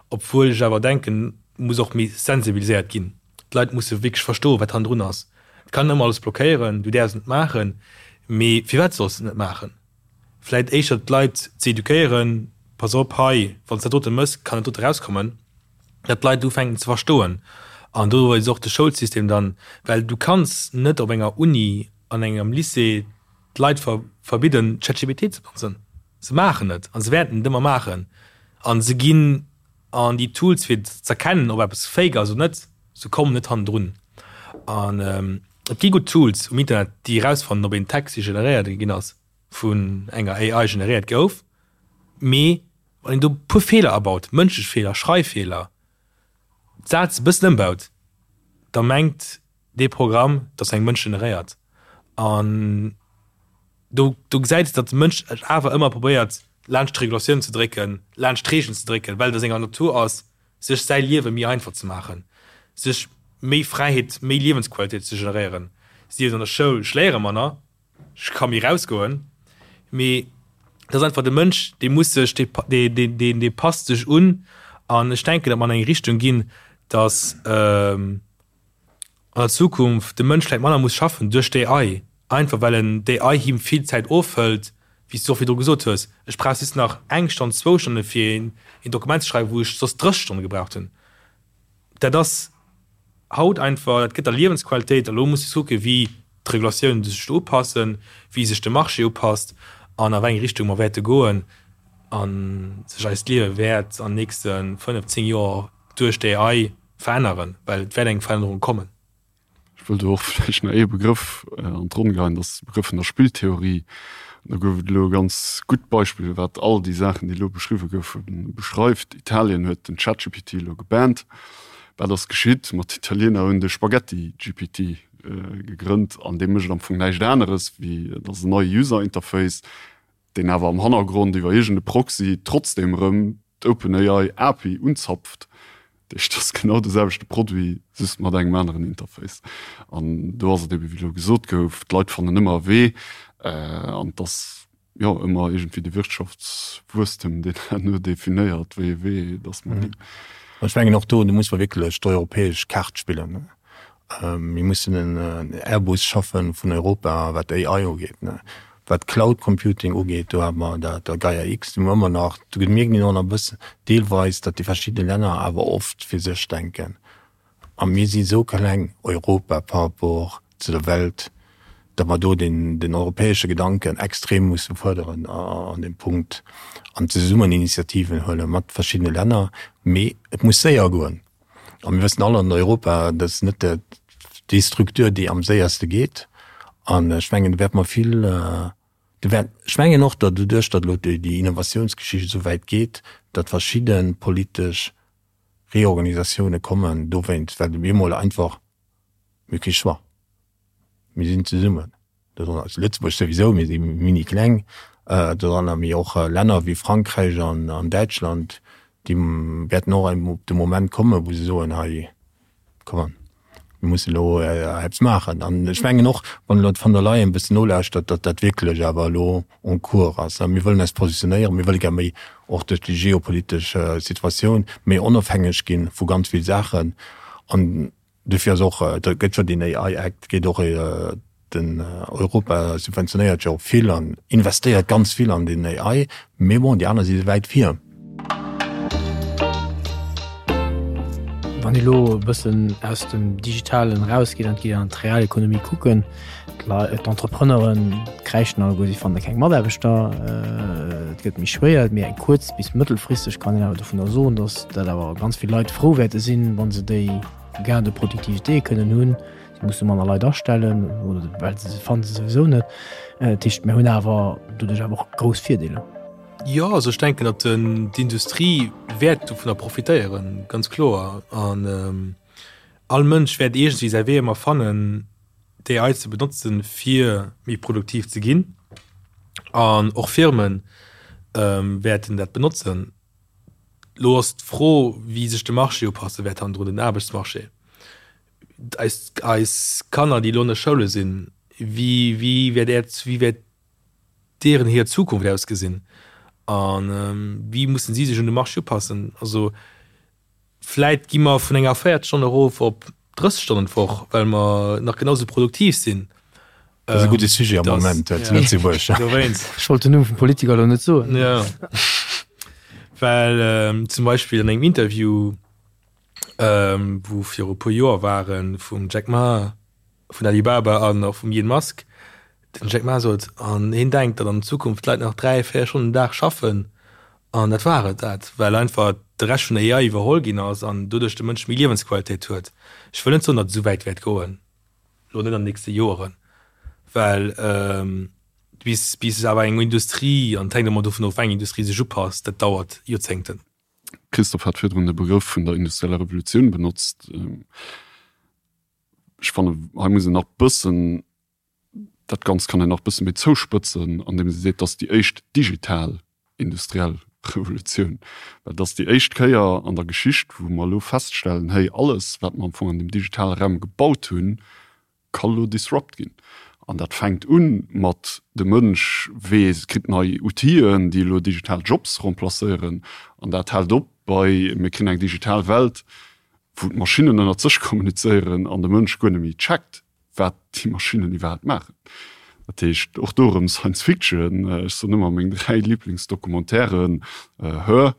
obwuel ech awer denken, muss och méi sensibiliséiert ginn. D'Leit musse wierklech verstoen, wat hannendrun ass. Et kann ëmmer alles blockéieren, du däerfs et net maachen, mee firwat solls de et net maachen? Vläit éischter d'Leit ze eduquéieren, Pass op, hei, wann s dat dote mëss, kann dat dote erauskommen, datt d'Leit ufänken ze verstoen. An do ass och de Schoulsystem dann, well du kanns net op enger Uni, an engem Lycée d'Leit verbidden, ChatGPT ze benotzen. Se maachen et a se wäerten et ëmmer maachen. A se ginn an déi Tools fir z'erkennen, ob eppes fake ass oder net, se kommen net hannendrun. An et gi gutt Tools um Internet, déi erausfannen, ob een Text, dee generéiert ginn ass, vun enger AI generéiert gouf. Mee wann een do e puer Feeler abaut, mënschlech Feeler, Schreiffeeler, d'Säz e bëssen ëmbaut, da mengt dee Programm, dass eng Mënsch generéiert. An do, do gesäit s, datt de Mënsch et awer ëmmer probéiert, laanscht d'Regulatioun ze drécken, laanscht d'Reegelen ze drécken, well et a senger Natur ass, sech säi Liewe méi einfach ze maachen, sech méi Fräiheet, méi Liewensqualitéit ze generéieren. Sief et an der Schoul, ech léiere manner, ech ka méi rausgoen, mee et ass einfach de Mënsch, dee muss sech, dee, dee, dee, dee passt sech un. An ech denken, datt mer an eng Richtung ginn, datt, an der Zukunft de Mënsch vläit manner muss schaffen duerch d'AI, einfach well en d'AI him vill Zäit ofhëlt, wéi s du och virdru gesot hues, ech brauch just nach eng Stonn, zwou Stonne fir een Dokument ze schreiwen, wou ech soss 30 Stonne gebraucht hunn. Dat ass haut einfach, dat gëtt der Liewensqualitéit. A lo muss de kucken, wéi d'Regulatiounen sech do upassen, wéi sech de Marché upasst an a wéi eng Richtung mer wäerte goen a sech eist Liewe wäert an nächste 5, 10 Joer duerch d'AI veränneren, well et wäert eng Verännerung kommen. Ech wëll do och vläicht nach ee Begrëff an d'Ronn geheien, dat ass de Begrëff vun der Spilltheorie. An do gouf et elo e ganz gutt Beispill, wat all déi Saachen, déi elo beschriwwe goufen, beschreift. Italien huet den ChatGPT elo gebannt. Wat ass geschitt? Ma d'Italiener hunn de Spaghetti-GPT gegrënnt an dee mécht am Fong näischt aneres wéi, et ass en neie User Interface, deen awer am Hannergrond iwwer iergend e Proxy trotzdem erëm d'OpenAI API unzapft. Dat heescht, dat ass genau de selwechte Produit, just mat engem aneren Interface. An do ass et ebe wéi elo gesot gouf, d'Leit fannen ëmmer e Wee an et ass jo ëmmer iergendwéi de Wirtschaftswuesstem, deen herno definéiert, wéi e Wee dass mer ginn. Ech mengen och do, do muss mer wierklech d'europäesch Kaart spillen. Mir mussen en Airbus schaffen vun Europa, wat AI ugeet. Wat Cloud Computing ugeet, do hate mer dat Gaia X, do hu mer ëmmer nach, do mierkt een och nach e bëssen deelweis, datt déi verschidde Länner awer oft fir sech denken. A mir si sou kleng, Europa, par rapport zu der Welt, datt mer do den europäesche Gedanken extrem musse fuerderen an deem Punkt an zesummen Initiativen huele mat verschiddene Länner. Mee et muss séier goen. A mir wëssen all an Europa, dat ass net déi Structure, déi am séierste geet. An ech mengen, do wäerte mer vill, do wäert, ech mengen och, datt doduerch, datt elo déi Innovatiounsgeschicht esou wäit geet, datt verschidde politesch Reorganisatioune kommen dowéinst, well op eemol einfach, mir hu kee Choix, mir sinn zesummen. Dodranner ass Lëtzebuerg souwisou, mir si mini kleng dodranner, mee och Länner wéi Frankräich an Däitschland, déi wäerten och op de Moment kommen, wou se soen, hei, come on, mir mussen elo eppes maachen. An ech mengen och, wann elo d'Von der Leyen e bëssen nolauschtert, datt dat wierklech awer elo en cours ass. Mir wëllen eis positionéieren, mir wëlle gär méi, och duerch déi geopolitesch Situatioun, méi onofhängeg gi vu ganz vill Saachen. An Dofir ass och, et gëtt jo deen AI Act, geet och den Europa subventionéiert jo och vill an investéiert ganz vill an den AI, mee bon, déi aner si wäit vir. Wann ee lo e bëssen aus dem Digitalen erausgeet an et geet an d'Realekonomie kucken, d'Entrepreneuren kräischen alleguer, si fanne keng Mataarbechter, et gëtt méi schwéier, mee eng kuerz bis mëttelfristeg kann een awer dovunner soen, datt dat awer ganz vill Leit frou wäerte sinn, wa se déi Gain de productivité kënnen hunn. Si musse manner Leit astellen oder well se se fanne se souwisou net. Dat heescht, mir hunn awer doduerch awer och grouss Virdeeler. Jo, also ech denken, datt d'Industrie wäert dovunner profitéieren, ganz kloer. An all Mënsch wäert iergendwéi säi Wee ëmmer fannen, d'AI ze benotzen, fir méi produktiv ze ginn. An och Firme wäerten dat benotzen. Elo ass d'Fro, wéi sech de Marché upasse wäert hannendrun, den Aarbechtsmarché. Eis, eis Kanner, déi elo an de Schoule sinn, wéi, wéi wäert Äert, wéi wäert deeren hir Zukunft ausgesinn a wéi mussen si sech un de Marché upassen? Also vläit gi mer vun enger 40 Stonne erof op 30 Stonnen d'Woch, well mer nach genau sou produktiv sinn. Dat ass e gudde Sujet am Moment zu Lëtzebuerg. Dowéinst. Ech wollt den Numm vum Politiker elo net soen. Jo. Well zum Beispill an engem Interview, wou viru e puer Joer waren, vum Jack Ma vun Alibaba an och vum Elon Musk, den Jack Ma sot, an hien denkt, datt an Zukunft d'Leit nach 3, 4 Stonnen den Dag schaffen an dat war et dat, well einfach de Rescht vun der AI iwwerholl ginn ass an doduerch de Mënsch méi Liewensqualitéit huet. Ech wëll net soen, datt et esou wäit wäert goen, elo net an den nächste Joeren, well bis bis awer eng Industrie, an et hänkt ëmmer dovun of, wéi eng Industrie sech upasst, dat dauert Joerzéngten. Christophe hat virdrun de Begrëff vun der industrieller Revolutioun benotzt. Ech fannen, hei muss een nach bëssen, dat Ganzt kann een nach bësse méi zouspëtzen, andeem ee seet, dass déi éischt digital industriell Revolutioun, well et ass déi éischt Kéier an der Geschicht, wou mer elo feststellen, hey, alles, wat mer am Fong an deem digitale Raum gebaut hunn, ka lo disrupt ginn. An dat fänkt u mat, de Mënsch weess, kritt nei Outiller, déi elo digital Jobs remplacéieren. An dat hält op bei, mir kréien eng digital Welt, wou d'Maschinnen ënnert sech kommunizéieren an de Mënsch guer net méi checkt, wat déi Maschinnen iwwerhaapt maachen. Dat heescht, och do erëm Science Fiction, ech soen ëmmer, meng 3 Liblingsdocumentairen, Her,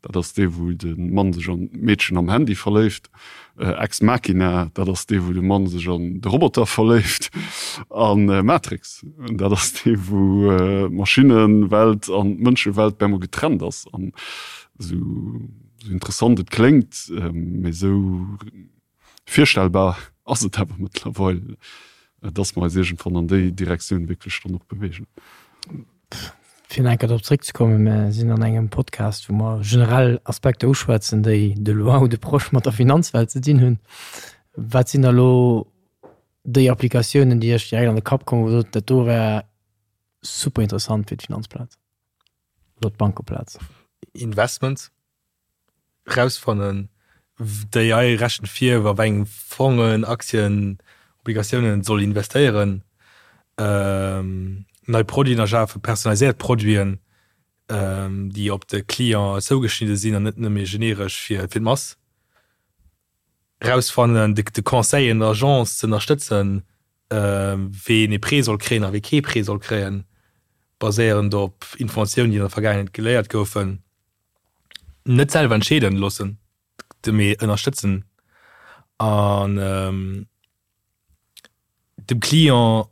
dat ass dee wou de Mann sech an d'Meedchen am Handy verléift, Ex Machina, dat ass dee wou de Mann sech an de Roboter verléift, a Matrix, dat ass dee wou d'Maschinnewelt an d'Mënschewelt bemol getrennt ass. An esou interessant et kléngt, mee esou Virstellbar ass et awer mëttlerweil, dass mer eis iergendwann an déi Direktioun wierklech dann och beweegen. Fir nach eng Kéier drop zréckzekommen, Mir sinn an engem Podcast, wou mer generell Aspekter uschwätzen, déi de loin ou de proche mat der Finanzwelt ze dinn hunn. Wat sinn da elo déi Applikatiounen, déi Iech direkt an de Kapp kommen, wou Der sot, dat do wär super interessant fir d'Finanzplaz oder d'Bankeplaz? Investments. Rausfannen, d'AI rechent vir, a wei eng Fongen, Aktien, Obligatiounen et soll investéieren, nei Produiten erschafen, personaliséiert Produiten, déi op de Client zougeschnidde sinn an net nëmme generesch fir d'Mass. Rausfannen, de Conseil en Agence ze ënnerstëtzen, ween ee Prêt soll kréien a wee kee Prêt soll kréien, baséierend op Informatiounen, déi an der Vergaangenheet geléiert goufen. Net selwer entscheeden loossen, mee ënnerstëtzen an dem Client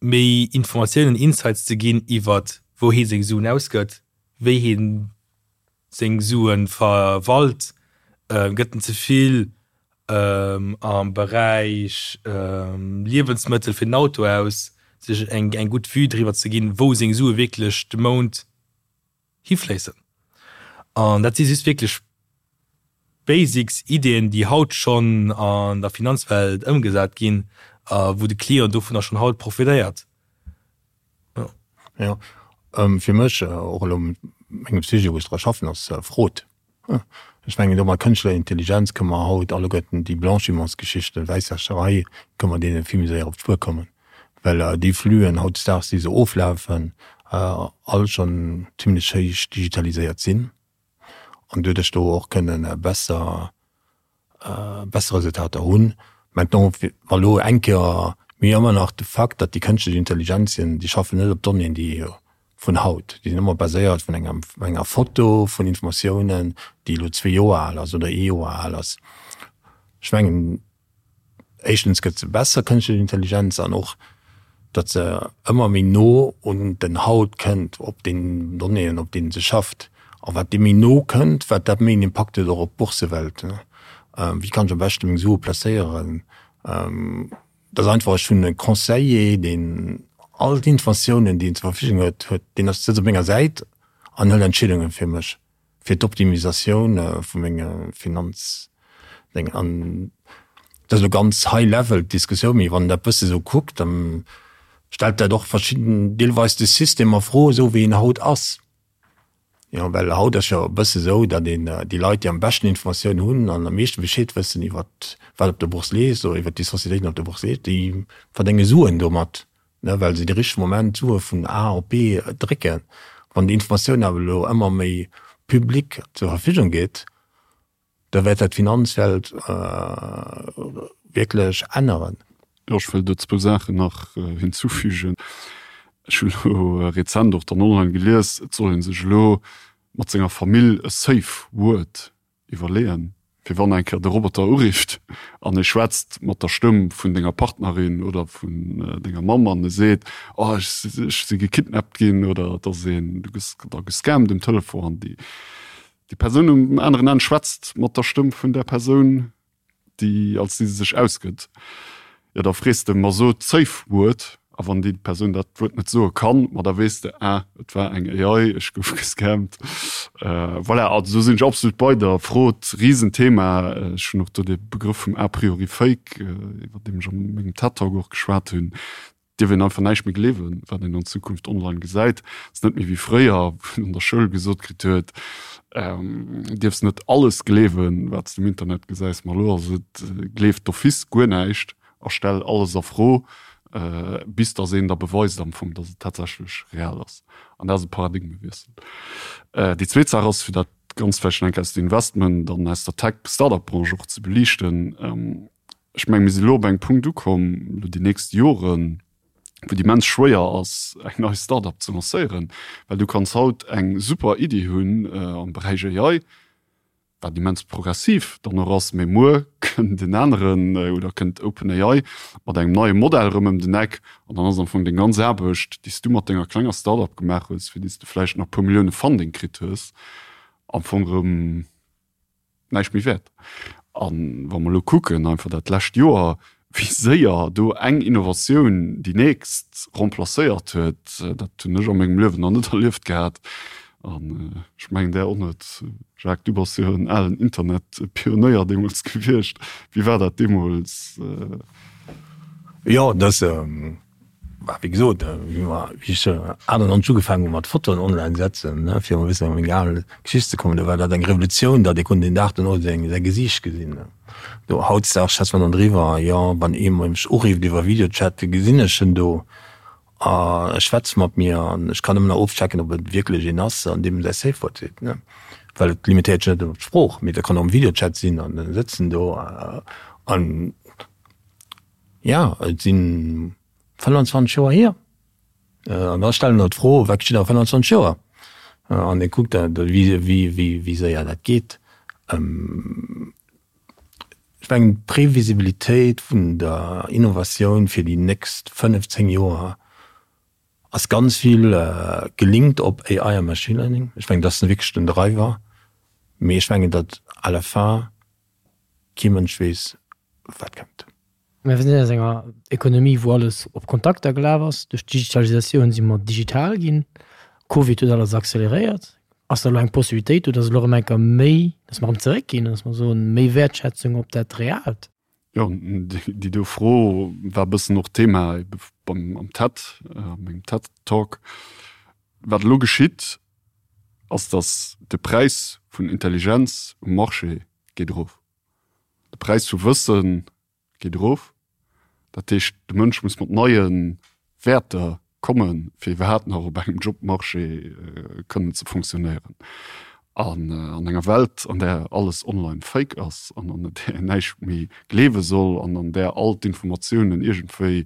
méi Informatiounen, Insights ze ginn iwwert wou hee seng Suen ausgëtt, wéi hee seng Sue verwalt, gëtt en ze vill am Beräich Liewensmëttel fir den Auto aus, sech eng gutt Vue driwwer ze ginn, wou seng Sue wierklech de Mount hifléissen. An dat si just wierklech Basics, Ideeën, déi haut schonn an der Finanzwelt ëmgesat ginn a wou de Client dovunner schonn haut profitéiert. Jo. Jo, fir mech, och elo mengem Sujet, wou ech dra schaffen, ass Fraude. Ech mengen, do mat kënschtlecher Intelligenz kënne mer haut alleguerten déi Blanchimentsgeschichten, Wäisswäscherei, kënne mer deene vill méi séier op d'Spuer kommen, well déi Flüen hautdesdaags, déi esou oflafen, all schonn zimlech héich digitaliséiert sinn an doduerch do och kënne besser besser Resultater hunn. Maintenant, wa lo eng Kéier, mir hu ëmmer nach de Fakt, datt déi kënschtlech Intelligenzien, déi schaffen net op Donnéeën, déi vun haut, déi sinn ëmmer baséiert vun engem, enger Foto, vun Informatiounen, déi elo zwee Joer al ass oder ee Joer al ass. Ech mengen, éischtens gëtt se besser, kënschtlech Intelligenz, an och, datt se ëmmer méi no un den Haut kënnt, op den Donnéeën, op deenen se schafft. A wat deem méi no kënnt, wat dat méi en Impakt huet och op d'Boursewelt. Wéi kann ech am beschte meng Sue placéieren? Dat ass einfach, ech hunn e Conseiller, deen all d'Informatiounen, déi en zur Verfügung huet, huet, deen ass, sëtzt op menger Säit. an hëlt Entscheedunge fir mech, fir d'Optimisatioun vu menge Finanzdéngen. An dat ass elo ganz high level d'Diskussioun, mee wann een dat bësse sou kuckt, da stellt dat och verschidden, deelweis de System a Fro, esou wéi en haut ass. Jo, well haut ass jo e bësse esou, datt een déi Leit, déi am beschten Informatioun hunn an am meeschte Bescheed wëssen iwwert wat op der Bourse leeft oder iwwert déi Sociétéiten op der Bourse leeft, déi verdénge Suen domat, ne, well se de richtege Moment d'Sue vun A op B drécken. Wann déi Informatioun awer elo ëmmer méi public zur Verfügung geet, Da wäert dat d'Finanzwelt wierklech änneren. Jo, ech wëll do zwou Saachen nach hinzufügen. Ech hunn elo rezent och dann online gelies, et soll ee sech elo mat senger Famill e Safe Word iwwerleeën, fir wann eng Kéier de Roboter urifft an e schwätzt mat der Stëmm vun denger Partnerin oder vun denger Mamm an e seet, oh ech si gekidnappt ginn oder et ass een, du gëss da gescammt um Telefon an déi Déi Persoun um aneren Enn schwätzt mat der Stëmm vun där Persoun, déi als déi se sech ausgëtt. Jo, da frees de, ma so d'Safe Word. A wann déi Persoun dat Wuert net soe kann, ma da weess de, ah, et war eng AI, ech gouf gescammt. Voilà, also do sinn ech absolut bei der. Frot, Risenthema. Ech hunn och do de Begrëff vum a priori Fake, iwwer deem ech a mengem TED-Talk och geschwat hunn. dierf een einfach näischt méi gleewen, wat een an Zukunft online gesäit. Et ass net méi wéi fréier, wou een an der Schoul gesot kritt huet, du dierfs net alles gleewen, wat s de um Internet gesäis. Ma elo ass et, gleef d'office guer näischt a stell alles a Fro, bis datt een der beweist am Fong, datt et tatsächlech real ass. An dat ass e Paradigmewiessel. Déi zweet Saach ass, fir dat Ganzt vläicht nach eng Kéier aus der Investment an aus der Tech-Startup-Branche och ze beliichten, Ech mengen, mir si elo op engem Punkt ukomm, elo déi nächst Joren, wou et immens schwéier ass, eng nei Start-up ze lancéieren, well du kanns haut eng super Iddi hunn am Beräich AI, wat immens progressiv dann och ass, mee muer kënnt en aneren oder kënnt OpenAI mat engem neie Modell erëm ëm den Eck an dann ass am Fong deng ganz Aarbecht, déi s du mat denger klenger Start-up gemaach hues, fir déi s du vläicht nach e puer Millioune Funding kritt hues, am Fong erëm näischt méi wäert. A wa mer elo kucken, einfach dat lescht Joer, wéi séier do eng Innovatioun déi nächst remplacéiert huet, dat hunn ech a mengem Liewen nach net erlieft gehat. An ech mengen där och net. Jacques, du bass jo en alen Internetpionéier deemools gewiescht. Wéi war dat deemools? Jo, dat Bah, wéi gesot, wéi mer, wéi ech 98 ugefaangen hu mat Fotoen online setzen, ne, fir emol e bëssen op meng al Geschicht ze kommen, do war dat eng Revolutioun, datt ee konnt den Dag dono seng, säi Gesiicht gesinn. Do, hautdesdaags schwätze mer dann driwwer, jo, wann ee mech urifft iwwer Videochat, gesinn ech en do a e schwätzt mat mir an ech kann ëmmer nach ofchecken, ob et wierklech een ass, an deem säi Safe Word seet, ne, well et limitéiert sech net op d'Sprooch, mee dat kann och am Videochat sinn an e sëtzen do an. Jo, et si 25 Joer hier. An da stellen der d'Fro, wat geschitt a 25 Joer? An ee kuckt da, wéi séier dat geet. Ech mengen, d'Previsibilitéit vun der Innovatioun fir déi nächst 5, 10 Joer ass ganz vill gelinkt op AI a Machine Learning. Ech mengen, dat ass wierklech den Driver. Mee ech mengen, datt à la fin kee Mënsch weess, wat kënnt. Mir sinn aus enger Ekonomie, wou alles op Kontakter gelaf ass. Duerch d'Digitalisatioun si mer digital ginn. Covid huet alles acceleréiert. Ass da elo eng Possibilitéit do, datt elo erëm eng Kéier méi, datt mer erëm zeréckginn, datt mer soen, méi Wäertschätzung op dat Reaalt? Jo, déi do Fro war e bëssen och Thema ebe beim am TED, a mengem TED-Talk. Wat elo geschitt, ass, datt de Präis vun Intelligenz um Marché geet erof. De Präis vu Wësse geet erof. Dat heescht, de Mënsch muss mat neie Wäerter kommen, fir iwwerhaapt nach op engem Jobmarché kënnen ze fonctionnéieren. An an enger Welt, an där alles online fake ass an an där een näischt méi gleewe soll an an där all d'Informatiounen iergendwéi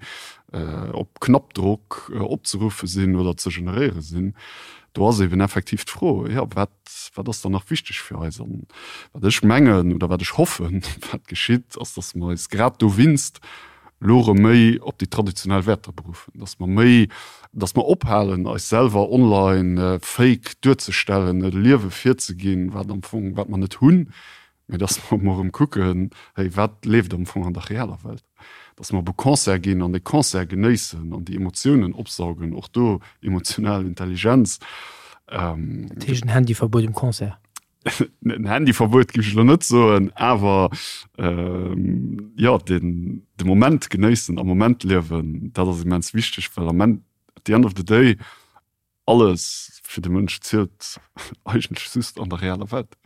op Knappdrock opzeruffe sinn oder ze generéiere sinn, do ass eben effektiv d'Fro, jo, wat, wat ass dann nach wichteg fir eis? An wat ech mengen oder wat ech hoffen, wat geschitt, ass, datt mer eis grad dowinst elo erëm méi op déi traditionell Wäerter beruffen, datt mer méi, datt mer ophalen, eis selwer online fake duerzestellen, e Liewe virzeginn, wat am Fong, wat mer net hunn, mee datt mer emol erëm kucken, hey, wat leeft am Fong an der realer Welt? Datt mer op e Concert ginn an dee Concert genéissen an déi Emotiounen opsaugen, och do emotional Intelligenz. Dat heescht en Handyverbuet um Concert? En Handyverbuet géif ech elo net soen, awer jo, den de Moment genéissen, am Moment liewen, dat ass immens wichteg, well am Enn, at the end of the day, alles fir de Mënsch zielt eigentlech just an der realer Welt.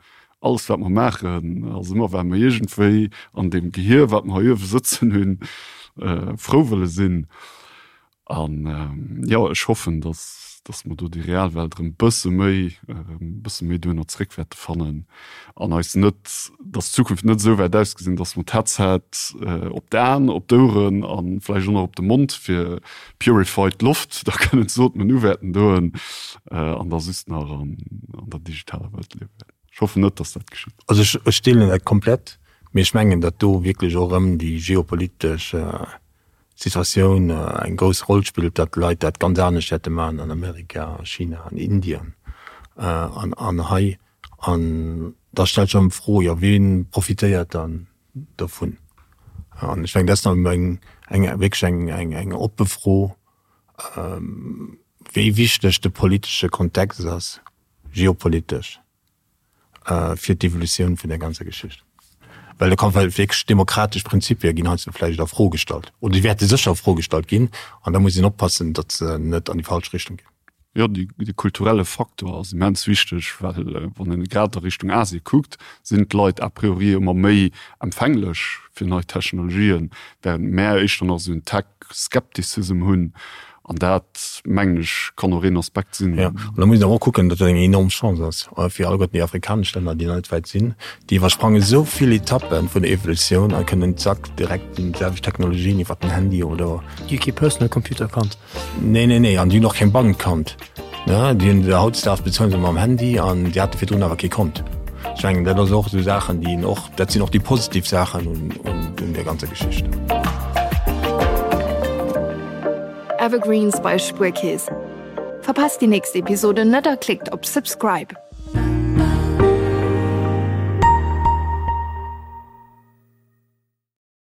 Alles wat mer maachen ass ëmmer well mer iergendwéi an deem Gehier wat mer hei uewe sëtzen hunn, frou wëlle sinn. An jo, ech hoffen, dass, dass mer do déi real Welt erëm e bësse méi, e bësse méi duerno zréck wäerte fannen an eis net, dass d'Zukunft net esou wäert ausgesinn, dass mer d'Headset op d'Aen, op d'Oueren a vläicht och nach op de Mond fir purified Loft da kënnen ze ootmen uwäerten doen an da just nach an der digitaler Welt liewe wäerten. Ech hoffen net, dass dat geschitt. Also ech deelen dat komplett, mee ech mengen, datt do wierklech och erëm déi geopolitesch Situatioun eng grouss Roll spillt, datt d'Leit dat ganz anescht wäerte maachen an Amerika, a China, an Indien an hei. An da stellt sech erëm d'Fro, jo wee profitéiert dann dovun? An ech mengen, dat ass nach eng wierklech eng oppe Fro, wéi wichteg de politesche Kontext ass, geopolitesch. fir d'Evolutioun vun der ganzer Geschicht. Well do kann well wierklech demokratesch Prinzipie ginn heiansdo vläicht a Fro gestallt oder déi wäerte sécher a Fro gestallt ginn an da muss een oppassen, datt se net an déi falsch Richtung ginn. Jo, de kulturelle Faktor ass immens wichteg, well wann een grad a Richtung Asie kuckt, sinn d'Leit a priori ëmmer méi empfänglech fir nei Technologien, während mär éischter nach esou en Tech-Skepticism hunn. An dat, mengen ech, kann och een Aspekt sinn. Jo, an da muss een awer och kucken, datt dat eng enorm Chance ass fir alleguerten déi afrikanesch Länner, déi nach net wäit sinn. Déi iwwersprange sou vill Etappe vun der Evolutioun a kënnen zack direkt déi selwecht Technologien iwwer den Handy oder. Déi hu kee Personal Computer kannt. Nee, nee, nee, an déi hunn och keng Bank kannt. Ne, déi hunn hautdesdaags bezuelen se mam Handy an déi hate virdrun awer kee Kont. Ech mengen, dat ass och esou Saachen, déi een och, dat sinn och déi positiv Saachen un, un där ganzer Geschicht. Evergreens bei Spuerkeess. Verpasst déi nächst Episode net a klickt op Subscribe.